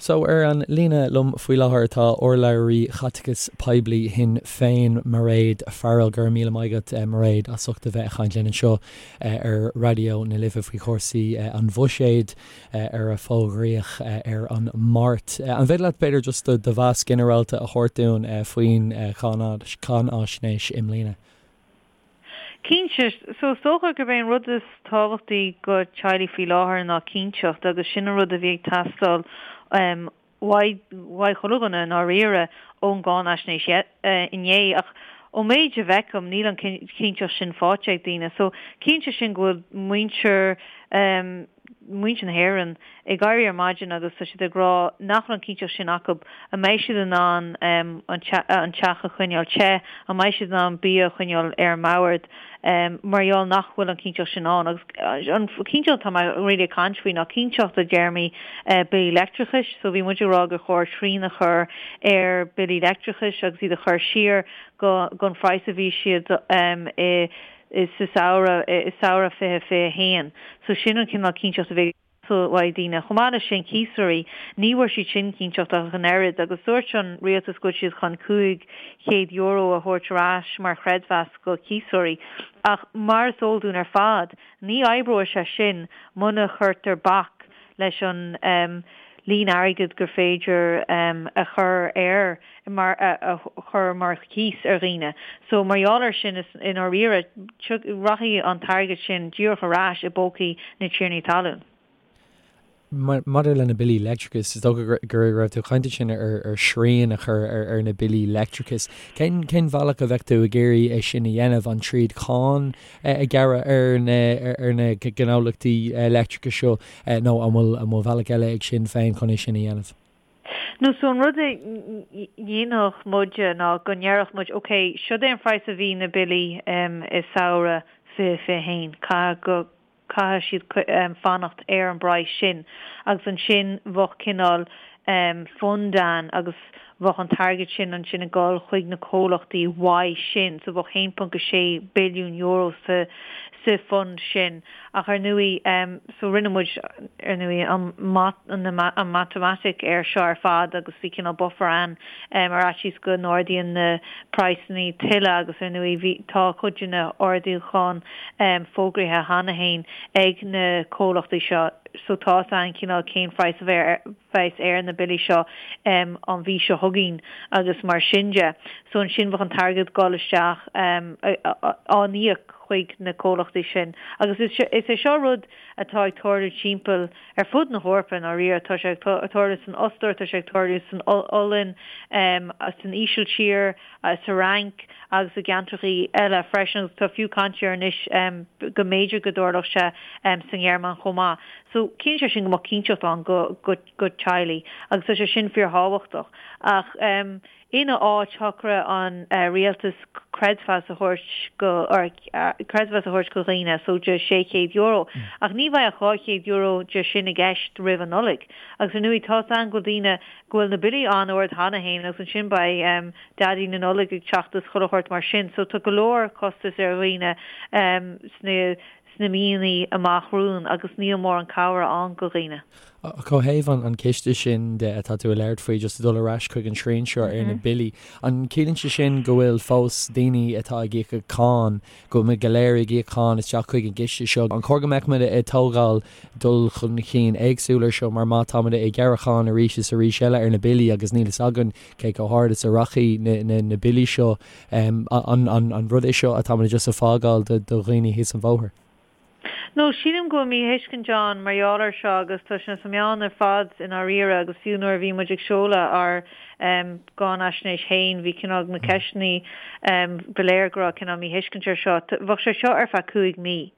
So ar an líne liom faoi láthair tá urlabhraí chaiteachas poiblí Shinn Féin, Mairéad Farrell. Go raibh míle maith agat, Mairéad, as ucht a bheith ag caint linn anseo ar Raidió na Life faoi chúrsaí an bhuiséid ar a fógraíodh ar an Máirt. An féidir leat b'fhéidir just do mheas ginearálta a thabhairt dúinn faoin cháinaisnéis i mbliana? Cinnte. So is dócha gurb é an rud is tábhachtaí go teaghlaigh faoi láthair ná cinnteacht agus sin an rud a bhí ag teastáil uaidh chuile dhuine i ndáiríre ón gcáinaisnéis inné. Ach ón méid a bhfeicim níl an chinnteacht sin faighte ag daoine. So cinnte sin go bhfuil muintir muintir na hÉireann ag éirí ar maidin agus tá siad ag rá nach bhfuil an chinnteacht sin acu, an mbeidh siad in ann an teach a choinneáil te, an mbeidh siad in ann bia a choinneáil ar an mbord mar gheall nach bhfuil an chinnteacht sin ann. Agus an chinnteacht atá mé really ag caint faoi ná cinnteacht i dtéarmaí billí leictreachais. So bhí muid ag rá gur chóir srian a chur ar billí leictreachais agus iad a chur siar go an phraghas a bhí siad i sa samhradh, i samhradh 2021. So sin an cineál cinnteacht a bhí ag teastáil uaidh daoine. Chomh maith leis sin, cíosóirí, ní bhfuair siad sin cinnteacht ach an oiread agus dúirt an rialtas go bhfuil siad chun €500 a thabhairt ar ais mar chreidmheas go cíosóirí. Ach mar is eol dúinn ar fad, ní oibreoidh sé sin muna chuirtear bac leis an líon airgid gur féidir a chur ar mar a chur mar chíos ar dhaoine. So mar gheall air sin is i ndáiríre rachaidh an t-airgead sin díreach ar ais i bpócaí na tiarnaí talún. Maidir le na billí leictreachais, is dócha go raibh tú ag caint ansin ar shrian a chur ar na billí leictreachais. Cén cén bhealach a bheadh tú ag iarraidh é sin a dhéanamh? An tríd cáin a ghearradh ar na ar na gnólachtaí leictreachais seo nó an bhfuil an bhfuil bealach eile ag Sinn Féin chun é sin a dhéanamh? No so an rud a dhéanfadh muide ná go ndéarfadh muid ok, siod é an praghas a bhí na billí i samhradh 2021, caithfidh go, caithfidh siad fanacht ar an bpraghas sin agus ansin bheadh cineál fund ann agus bheadh an t-airgead sin ansin ag dul chuig na comhlachtaí uaidh sin so bheadh €1.6 billiún sa sa fund sin ach ar ndóigh so rinne muid ar ndóigh an an matamaitic air seo ar fad agus bhí cineál buffer ann ar fhaitíos go n-ardaíonn na praghsanna tuilleadh agus ar ndóigh bhí tá cuid de na hardúcháin fógraithe cheana féin ag na comhlachtaí seo so tá 'fhios a'inn cineál cén phraghas a bheas ar na billí seo an mhí seo chugainn agus mar sin de. So ansin bheadh an t-airgead dul isteach á n-íoc chuig na comhlachtaí sin. Agus is é seo rud atá ag tarlú timpeall ar fud na hEorpa i ndáiríre. Tá sé ag tarlú san Ostair, tá sé ag tarlú san Ollainn, san Ísiltír, sa Fhrainc agus i gceantrachaí eile freisin agus tá fiú caint air anois go mb'fhéidir go dtarlódh sé sa nGearmáin chomh maith. So ciallaíonn sé sin go mbeadh cinnteacht ann go go go teaghlaigh agus tá sé sin fíorthábhachtach. Ach ina áit shocraigh an rialtas creidmheas a thabhairt go or creidmheas a thabhairt go dhaoine so de €600. Ach ní bheidh ach €200 de sin i gceist roimh an Nollaig. Agus ar ndóigh tá 'fhios a'inn go bhfuil daoine go bhfuil na billí an-ard cheana féin agus ansin beidh Daidí na Nollag ag teacht is chuile shórt mar sin. So tá go leor costas ar dhaoine sna sna míonna amach romhainn agus níl mórán cabhair ann go dhaoine. Ach ó thaobh an ciste sin de atá tú ag labhairt faoi, just ag dul ar ais chuig an srian seo ar na billí, an ciallaíonn sé sin go bhfuil fós daoine atá ag íoc cáin, go bhfuil muid go léir ag íoc cáin isteach chuig an gciste seo? An chóir go mbeadh muid ag tógáil dul chun cinn éagsúil ar seo mar má tá muid ag gearradh cáin arís is arís eile ar na billí agus níl fhios againn cé chomh hard is a rachaidh na billí seo, An rud é seo atá muid just ag fágáil do dhaoine thíos an bhóthar? No, sílim go bhfuil míthuiscint ann mar gheall air seo agus tá sé sna meáin ar fad i ndáiríre agus fiú nuair a bhí muid ag seoladh ár gcáinaisnéis féin bhí cineál na ceisteanna ba léir go raibh cineál míthuiscint air seo. Bheadh sé seo ar feadh 5 mí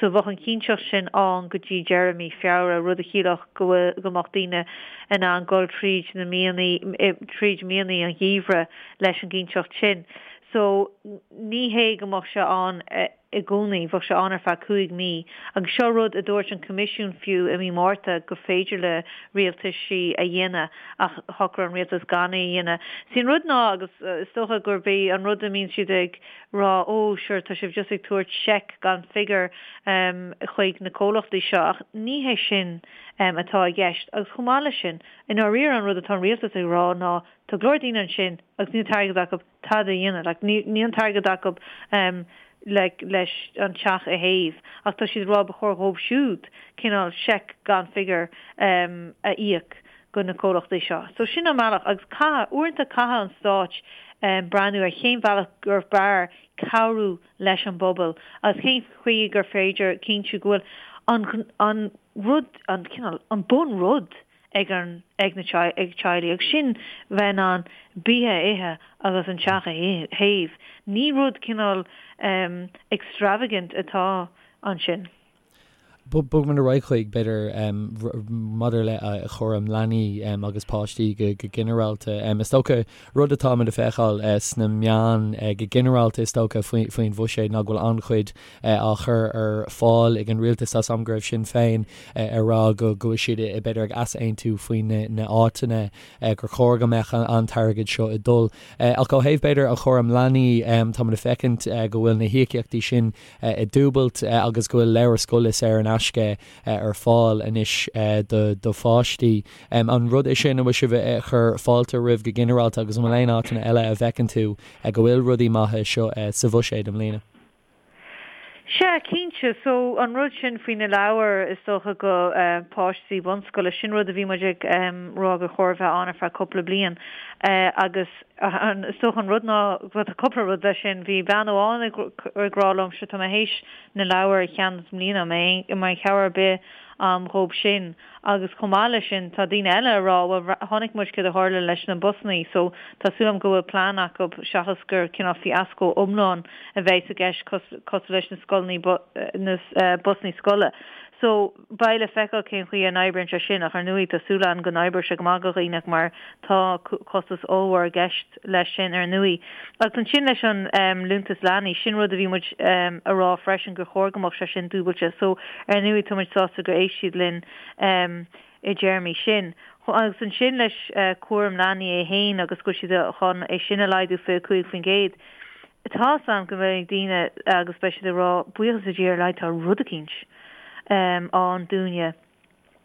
so bheadh an chinnteacht sin ann go dtí deireadh mí Feabhra, rud a chiallódh go bhfuil go mbeadh daoine in ann dul tríd na míonna tríd míonna an gheimhridh leis an gcinnteacht sin. So ní hé go mbeadh sé ann. i gcónaí, bheadh sé ann ar feadh 5 mí. Agus seo rud a dúirt an Coimisiún fiú i mí Márta gur féidir le rialtaisí a dhéanamh ach shocraigh an rialtas gan é a dhéanamh. Sí an rud ná, agus is dócha gurb é an rud a mbíonn siad ag rá, ó sure tá sibh just ag tabhairt seic gan figiúr chuig na comhlachtaí seo ach ní hé sin atá i gceist. Agus chomh maith leis sin, i ndáiríre an rud atá an rialtas ag rá ná tá go leor daoine ansin agus níl an t-airgead acu tada a dhéanamh. Like, níl an t-airgead acu like, leis an teach a théamh ach tá siad ag rá ba chóir dhóibh siúd cineál seic gan figiúr a íoc go na comhlachtaí seo. So sin an bealach agus caithfidh, uaireanta caithfidh an stáit breathnú ar cén bhealach gur fearr cabhrú leis an bpobal agus cén chaoi gur féidir cinntiú go bhfuil an, an rud, an cineál, an bun rud ag an, ag na, ag teaghlaigh agus sin bheith in ann bia a ithe agus an teach a théamh. Ní rud cineál extravagant atá ansin. Bogfaimid ar aghaidh chuig, b'fhéidir, maidir le chúram leanaí agus páistí go ginearálta. Is dócha, rud atáimid ag feiceáil sna meáin go ginearálta is dócha faoin bhuiséad ná go bhfuil an-chuid á chur ar fáil ag an rialtas. Tá's a'm go raibh Sinn Féin ag rá go bhfuil siad b'fhéidir ag easaontú faoi na áiteanna gur chóir go mbeadh an t-airgead seo ag dul. Ach ó thaobh b'fhéidir an chúram leanaí, táimid ag feicint go bhfuil na híocaíochtaí sin ag dúbailt agus go bhfuil leabhair scoile saor in aisce ar fáil anois do pháistí. An rud é sin a bhfuil sibh ag cur fáilte roimh go ginearálta agus an bhfuil aon áiteanna eile a bhfeiceann tú go bhfuil rudaí maithe seo sa bhuiséad i mbliana? Sea, cinnte. So, an rud sin faoi na leabhair, is dócha, go páistí bunscoile, sin rud a bhí muid ag rá gur chóir a bheith ann ar feadh cúpla bliain. Agus is dócha an rud ná, bhuel tá cúpla rud leis sin, bhí bean amháin ag rá liom, sure tá mé théis na leabhair a cheannach i mbliana, an mbeidh cabhair ar bith a'm dhób sin? Agus chomh maith leis sin, tá daoine eile ag rá, bhuel, chonaic muid céard a tharla leis na busannaí, so tá súil agam go bhfuil plean acu seachas gur cineál fiasco iomlán a bheidh i gceist cosúil leis na scoileanna, na busannaí scoile. So, beidh le feiceáil cén chaoi a n-oibríonn sé sin, ach ar ndóigh tá súil agam go n-oibreoidh sé go maith do dhaoine mar tá costas ollmhór i gceist leis sin ar ndóigh. Agus ansin leis an liúntas leanaí, sin rud a bhí muid a rá freisin gur chóir go mbeadh sé sin dúbailte. So, ar ndóigh tá muid sásta gur éist siad linn i dtéarmaí sin. Agus ansin leis cúram leanaí é fhéin agus go bhfuil siad chun é sin a laghdú 25%. Tá's a'm go mbeidh daoine agus beidh siad ag rá buíochas le Dia ar a laghad tá rud eicínt ann dúinne.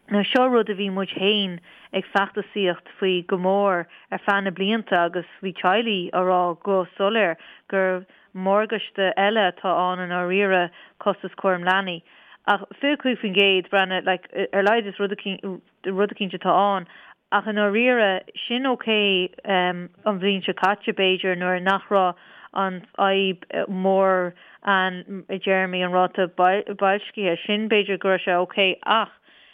Now seo rud a bhí muid féin ag feachtasaíocht faoi go mór ar feadh na blianta agus bhí teaghlaigh á rá go soiléir gur morgáiste eile atá ann i ndáiríre costas cúram leanaí. Ach 25%, breathnaigh, like, ar a laghad is rud rud eicínt atá ann. Ach i ndáiríre, sin ok an bhliain seo caite, b'fhéidir, nuair nach raibh an fhadhb mhór ann i dtéarmaí an ráta boilscithe. Sin, b'fhéidir go raibh sé ok ach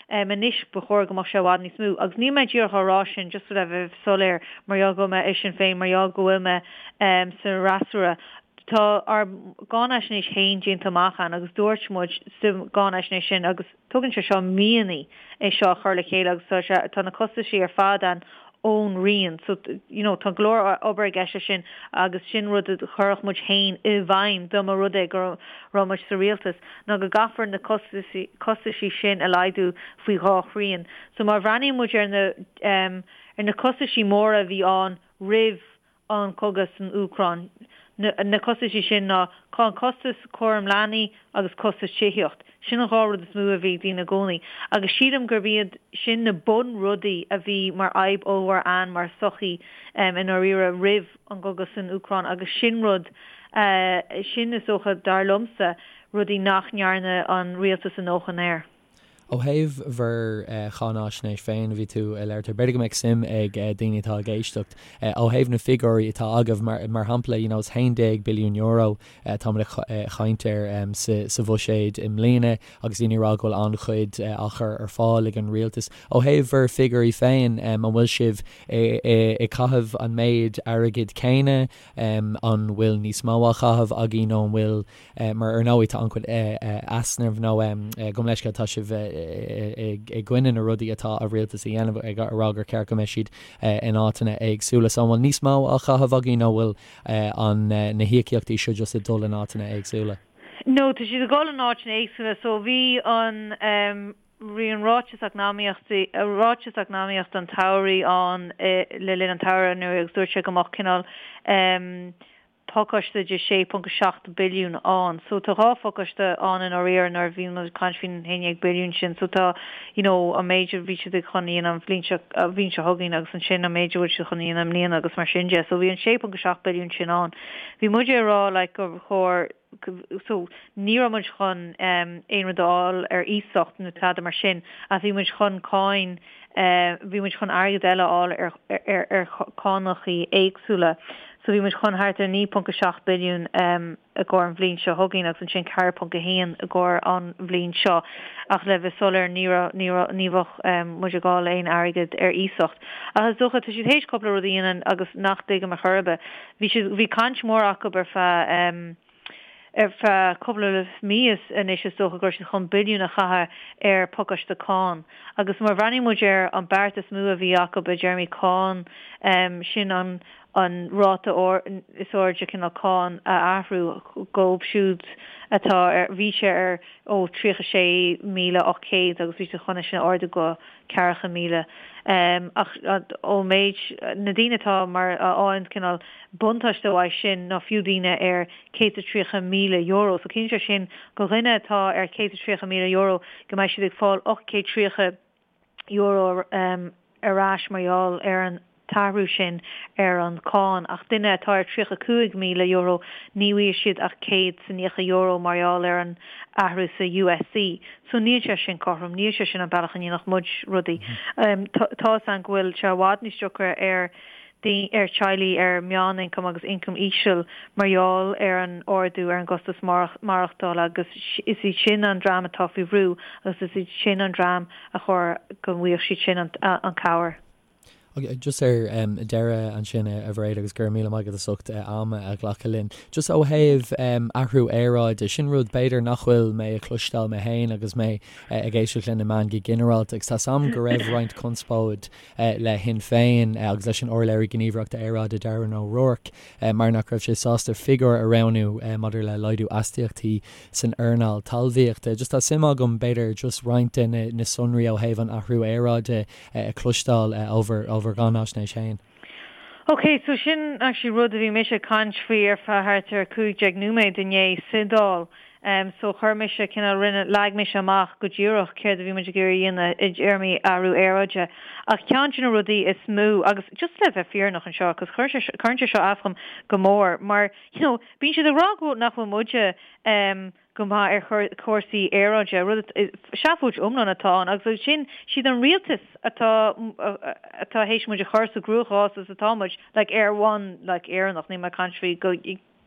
anois ba chóir go mbeadh sé i bhfad níos mó. Agus níl mé díreach á rá sin just le bheith soiléir mar gheall go bhfuil mé i Sinn Féin, mar gheall go bhfuil mé sa fhreasúra. Tá ár gcáinaisnéis féin déanta amach ann agus dúirt muid sa gcáinaisnéis sin agus, Tugann sé seo míonna é seo a chur le chéile agus tá sé, tá na costaisí ar fad ann ón Roinn. So, you know, tá go leor obair i gceist leis sin agus sin rud a chuirfeadh muid féin i bhfeidhm dá mba rud é go raibh muid sa rialtas, ná go gcaithfear na costaisí, costaisí sin a laghdú faoi dhá thrian. So má bhreathnaíonn muid ar na, ar na costaisí móra a bhí ann roimh an cogadh san Úcráin. Na costaisí sin ná an costas cúram leanaí agus costas tithíocht. Sin an dhá rud is mó a bhí ag daoine i gcónaí. Agus sílim gurb iad sin na bunrudaí a bhí mar fhadhb ollmhór ann mar sochaí i ndáiríre roimh an gcogadh san Úcráin agus sin rud, sin is dócha, dar liomsa, rudaí nach ndearna an rialtas a ndóthain air. Ó thaobh bhur cháinaisnéis féin, bhí tú ag labhairt air, b'fhéidir go mbeadh suim ag daoine atá ag éisteacht, ó thaobh na figiúirí atá agaibh, mar shampla, you know, is €11 billiún atáimid ag caint air sa bhuiséad i mbliana agus daoine ag rá go bhfuil an-chuid á chur ar fáil ag an rialtas. Ó thaobh bhur figiúirí féin, an bhfuil sibh ag caitheamh an méid airgid céanna, an bhfuil níos mó á chaitheamh agaibh nó an bhfuil Mar ar ndóigh tá an-chuid easnamh nó gabh mo leithscéal tá sibh i gcoinne na rudaí atá an rialtas a dhéanamh ag rá gur ceart go mbeidh siad in áiteanna éagsúla. So an bhfuil níos mó á chaitheamh agaibh nó bhfuil an na híocaíochtaí seo just ag dul in áiteanna éagsúla? No, tá siad ag dul in áiteanna éagsúla. So bhí an, bhí an ráiteas eacnamaíochta, ráiteas eacnamaíochta an tsamhraidh ann le linn an tsamhraidh anuraidh agus dúirt sé go mbeadh cineál pacáiste de 6.7 billiún ann. So tá 2 phacáiste ann i ndáiríre nuair a bhíonn muid ag caint faoin 11 billiún sin. So tá you know an méid a bhí siad ag chun a dhéanamh an bhliain seo, an bhliain seo chugainn agus ansin an méid a bhfuil siad chun a dhéanamh i mbliana agus mar sin de. So bhí an 6.7 billiún sin ann. Bhí muide ag rá like gur chóir so ní raibh muid chun aon rud a fháil ar iasacht nó tada mar sin ach bhí muid chun cáin, bhí muid chun airgead eile a fháil ar ar ar cánachaí éagsúla. So bhí muid chun thart ar 9.7 billiún i gcomhair an bhliain seo chugainn agus ansin 4.1 i gcomhair an bhliain seo. Ach le bheith soiléir ní raibh ní raibh ní bheadh muid ag fháil aon airgead ar iasacht. Ach is dócha tá siad théis cúpla rud a dhéanamh agus nach dtuigim ar chor ar bith. Bhí siad, bhí caint mhór acu ar feadh, ar feadh cúpla mí anois is dócha go raibh siad chun billiún a chaitheamh ar phacáiste cáin. Agus má bhreathnaíonn muid ar an beart is mó a bhí acu i dtéarmaí cáin, sin an, an ráta is airde cineál cáin a athrú dhóibh siúd atá ar, bhí sé ar ó 36,800 agus bhí siad chun é sin a ardú go 40,000. Ach ón méid, na daoine atá mar a fhaigheann cineál buntáiste uaidh sin ná fiú daoine ar €130,000. So ciallaíonn sé sin go dhuine atá ar €130,000 go mbeidh siad ag fáil €830 ar ais mar gheall ar an t-athrú sin ar an cáin, ach duine atá ar €35,000 ní bhfaighidh siad ach €190 mar gheall ar an athrú sa USC. So níl sé sin cothrom, níl sé sin an bealach a ndéanfadh muid rudaí. Tá fhios againn go bhfuil sé i bhfad níos deacra ar ar teaghlaigh ar meánioncam agus ioncam íseal mar gheall ar an ardú ar an gcostas maireachtála agus is iad sin an dream atá faoi bhrú agus is iad sin an dream a chóir go bhfaigheadh siad sin an cabhair. Just ar deireadh ansin, a Mhairéad, agus go raibh míle maith agat as ucht am a ghlacadh linn. Just ó thaobh athrú aeráide, sin rud b'fhéidir nach bhfuil mé ag cloisteáil mé féin agus mé ag éisteacht le na meáin go ginearálta agus tá 's a'm go raibh roinnt conspóid le Shinn Féin agus leis an urlabhraí gníomhaireachta aeráide Darren O'Rourke mar nach raibh sé sásta figiúr a roghnú maidir le laghdú astaíochtaí san earnáil talmhaíochta. Just tá suim agam b'fhéidir just roinnt de na sonraí ó thaobh an athrú aeráide a chloisteáil ó bhur gcáinaisnéis féin. Ok, so sin actually rud a bhí mise ag caint faoi ar feadh thart ar 15 nóiméad inné sa Dáil. So chuir mise cineál, rinne, leag mise amach go díreach céard a bhí muid ag iarraidh a dhéanamh i dtéarmaí athrú aeráide. Ach ceann de na rudaí is mó, agus just le bheith fírinneach anseo, cos chuir sé, cuireann sé seo as dhom go mór, mar, you know, bíonn siad ag rá go, nach bhfuil muide, go maith ar chúrsaí aeráide, rud seafóid iomlán atá ann agus ansin siad an rialtas atá atá théis muid a chur sa gcruachás is atá muid like ar bhonn like Éireannach, níl mé ag caint faoi go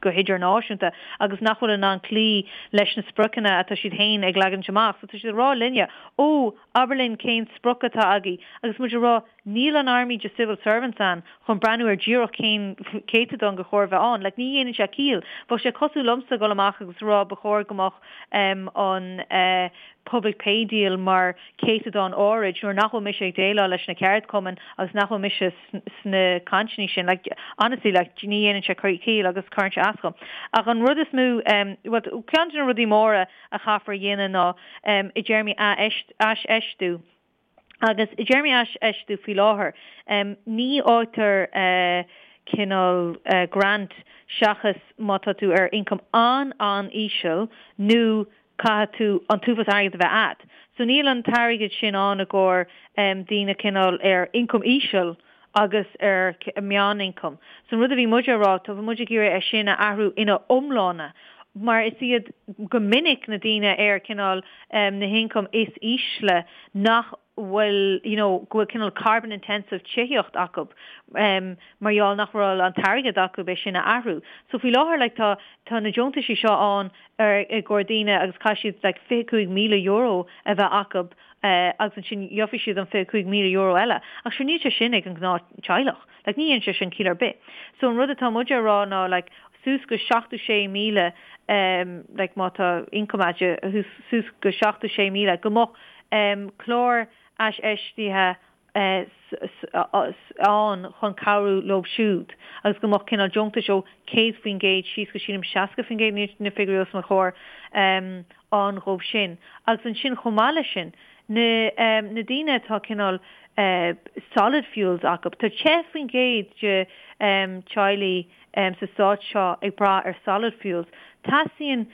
go hidirnáisiúnta agus nach bhfuil in ann cloí leis na spriocanna atá siad féin ag leagaint amach. So tá siad ag rá linne, ó, abair linn cén sprioc atá agaibh agus muid ag rá Níl an army de civil servants ann chun breathnú ar díreach cén céatadán gur chóir bheith ann. Like, ní dhéanann sé ciall. Bheadh sé cosúil liomsa dul amach agus rá ba chóir go mbeadh an public pay deal mar céatadán áirid nuair nach bhfuil mise ag déileáil leis na ceardchumainn agus nach bhfuil mise sna cainteanna sin. Like, honestly, like, ní dhéanann sé ciall agus cuireann sé as dhom. Ach an rud is mó, bhuel, ceann de na rudaí móra a chaithfear a dhéanamh ná i dtéarmaí aisfheistiú. Agus i dtéarmaí aisfheistiú faoi láthair, ní fhaightear cineál grant seachas má tá tú ar ioncam an-an-íseal nó caithfidh tú an t-uafás airgid a bheith a'd. So níl an t-airgead sin ann i gcomhair daoine cineál ar ioncam íseal agus ar meánioncam. So an rud a bhí muid a rá, tá muid ag iarraidh é sin a athrú ina iomláine mar is iad go minic na daoine ar cineál na hioncaim is ísle nach bhfuil you know go bhfuil cineál carbon intensive tithíocht acu mar gheall nach bhfuil an t-airgead acu é sin a athrú. So faoi láthair like tá tá na deontaisí seo ann ar i gcomhair daoine agus caithfidh siad like €25,000 a bheith acu agus ansin gheobhaidh siad an €25,000 eile. Ach sure níl sé sin ag an gnáth teaghlach. Like ní dhéanann sé sin ciall ar bith. So an rud atá muide a rá ná like suas go 76,000 em like má tá income a'd suas go 76,000 go mbeadh em clár aisfheistithe. Ann chun cabhrú leo siúd agus go mbeadh cineál deontais ó 100% síos go sílim 60%, níl na figiúirí os mo chomhair, ann dhóibh sin. Agus ansin chomh maith leis sin, na na daoine atá cineál solid fuels acu, tá 10% de teaghlaigh sa stát seo ag brath ar solid fuels. Teastaíonn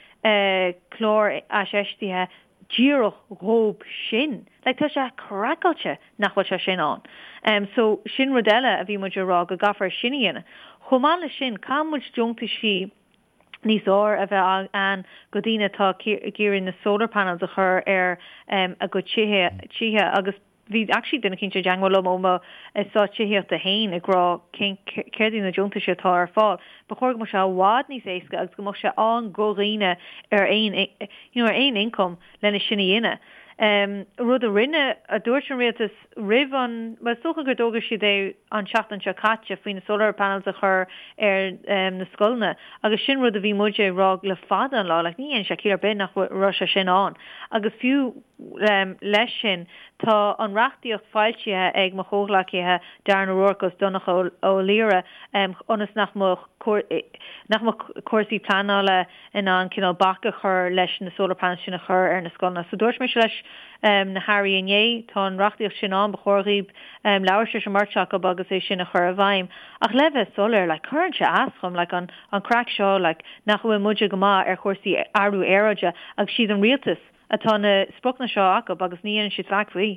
clár aisfheistithe díreach dhóib sin. Like tá sé craiceáilte nach bhfuil sé sin ann. Em so sin rud eile a bhí muid a rá go gcaithfear sin a dhéanamh. Chomh maith leis sin caithfidh muid deontaisí níos fhearr a bheith ann go daoine atá ag iarraidh na solar panels a chur ar em a gcuid tithe tithe agus Bhí actually duine eicínt i dteangmháil liom ó mo eastát tithíochta féin ag rá cén céard iad na deontais atá ar fáil. Ba chóir go mbeadh sé i bhfad níos éasca agus go mbeadh sé ann go dhaoine ar aon you know ar aon income lena sin a dhéanamh. Rud a rinne, a dúirt an rialtas roimh an, bhuel is dócha gur d'fhógair siad é an tseachtain seo caite faoi na solar panels a chur ar na scoileanna agus sin rud a bhí muide ag rá le fada an lá like ní dhéanann sé ciall ar bith nach raibh sé sin ann agus fiú Leis sin, tá an reachtaíocht foilsithe ag mo chomhghleacaithe Darren O'Rourke agus Donnchadh Ó Laoghaire ionas nach mbeadh nach mbeadh cúrsaí pleanála in ann cineál bac a chur leis na solar panels sin a chur ar na scoileanna. So dúirt mise leis na hairí inné, tá an reachtaíocht sin ann, ba chóir dhaoib labhairt leis an mbeirt acu agus é sin a chur i bhfeidhm. Ach le bheith soiléir, like, cuireann sé as dhom, like, an an craic seo, like, nach bhfuil muide go maith ar chúrsaí athrú aeráide agus siad an rialtas atá na spriocanna seo acu agus ní dhéanann siad faic faoi.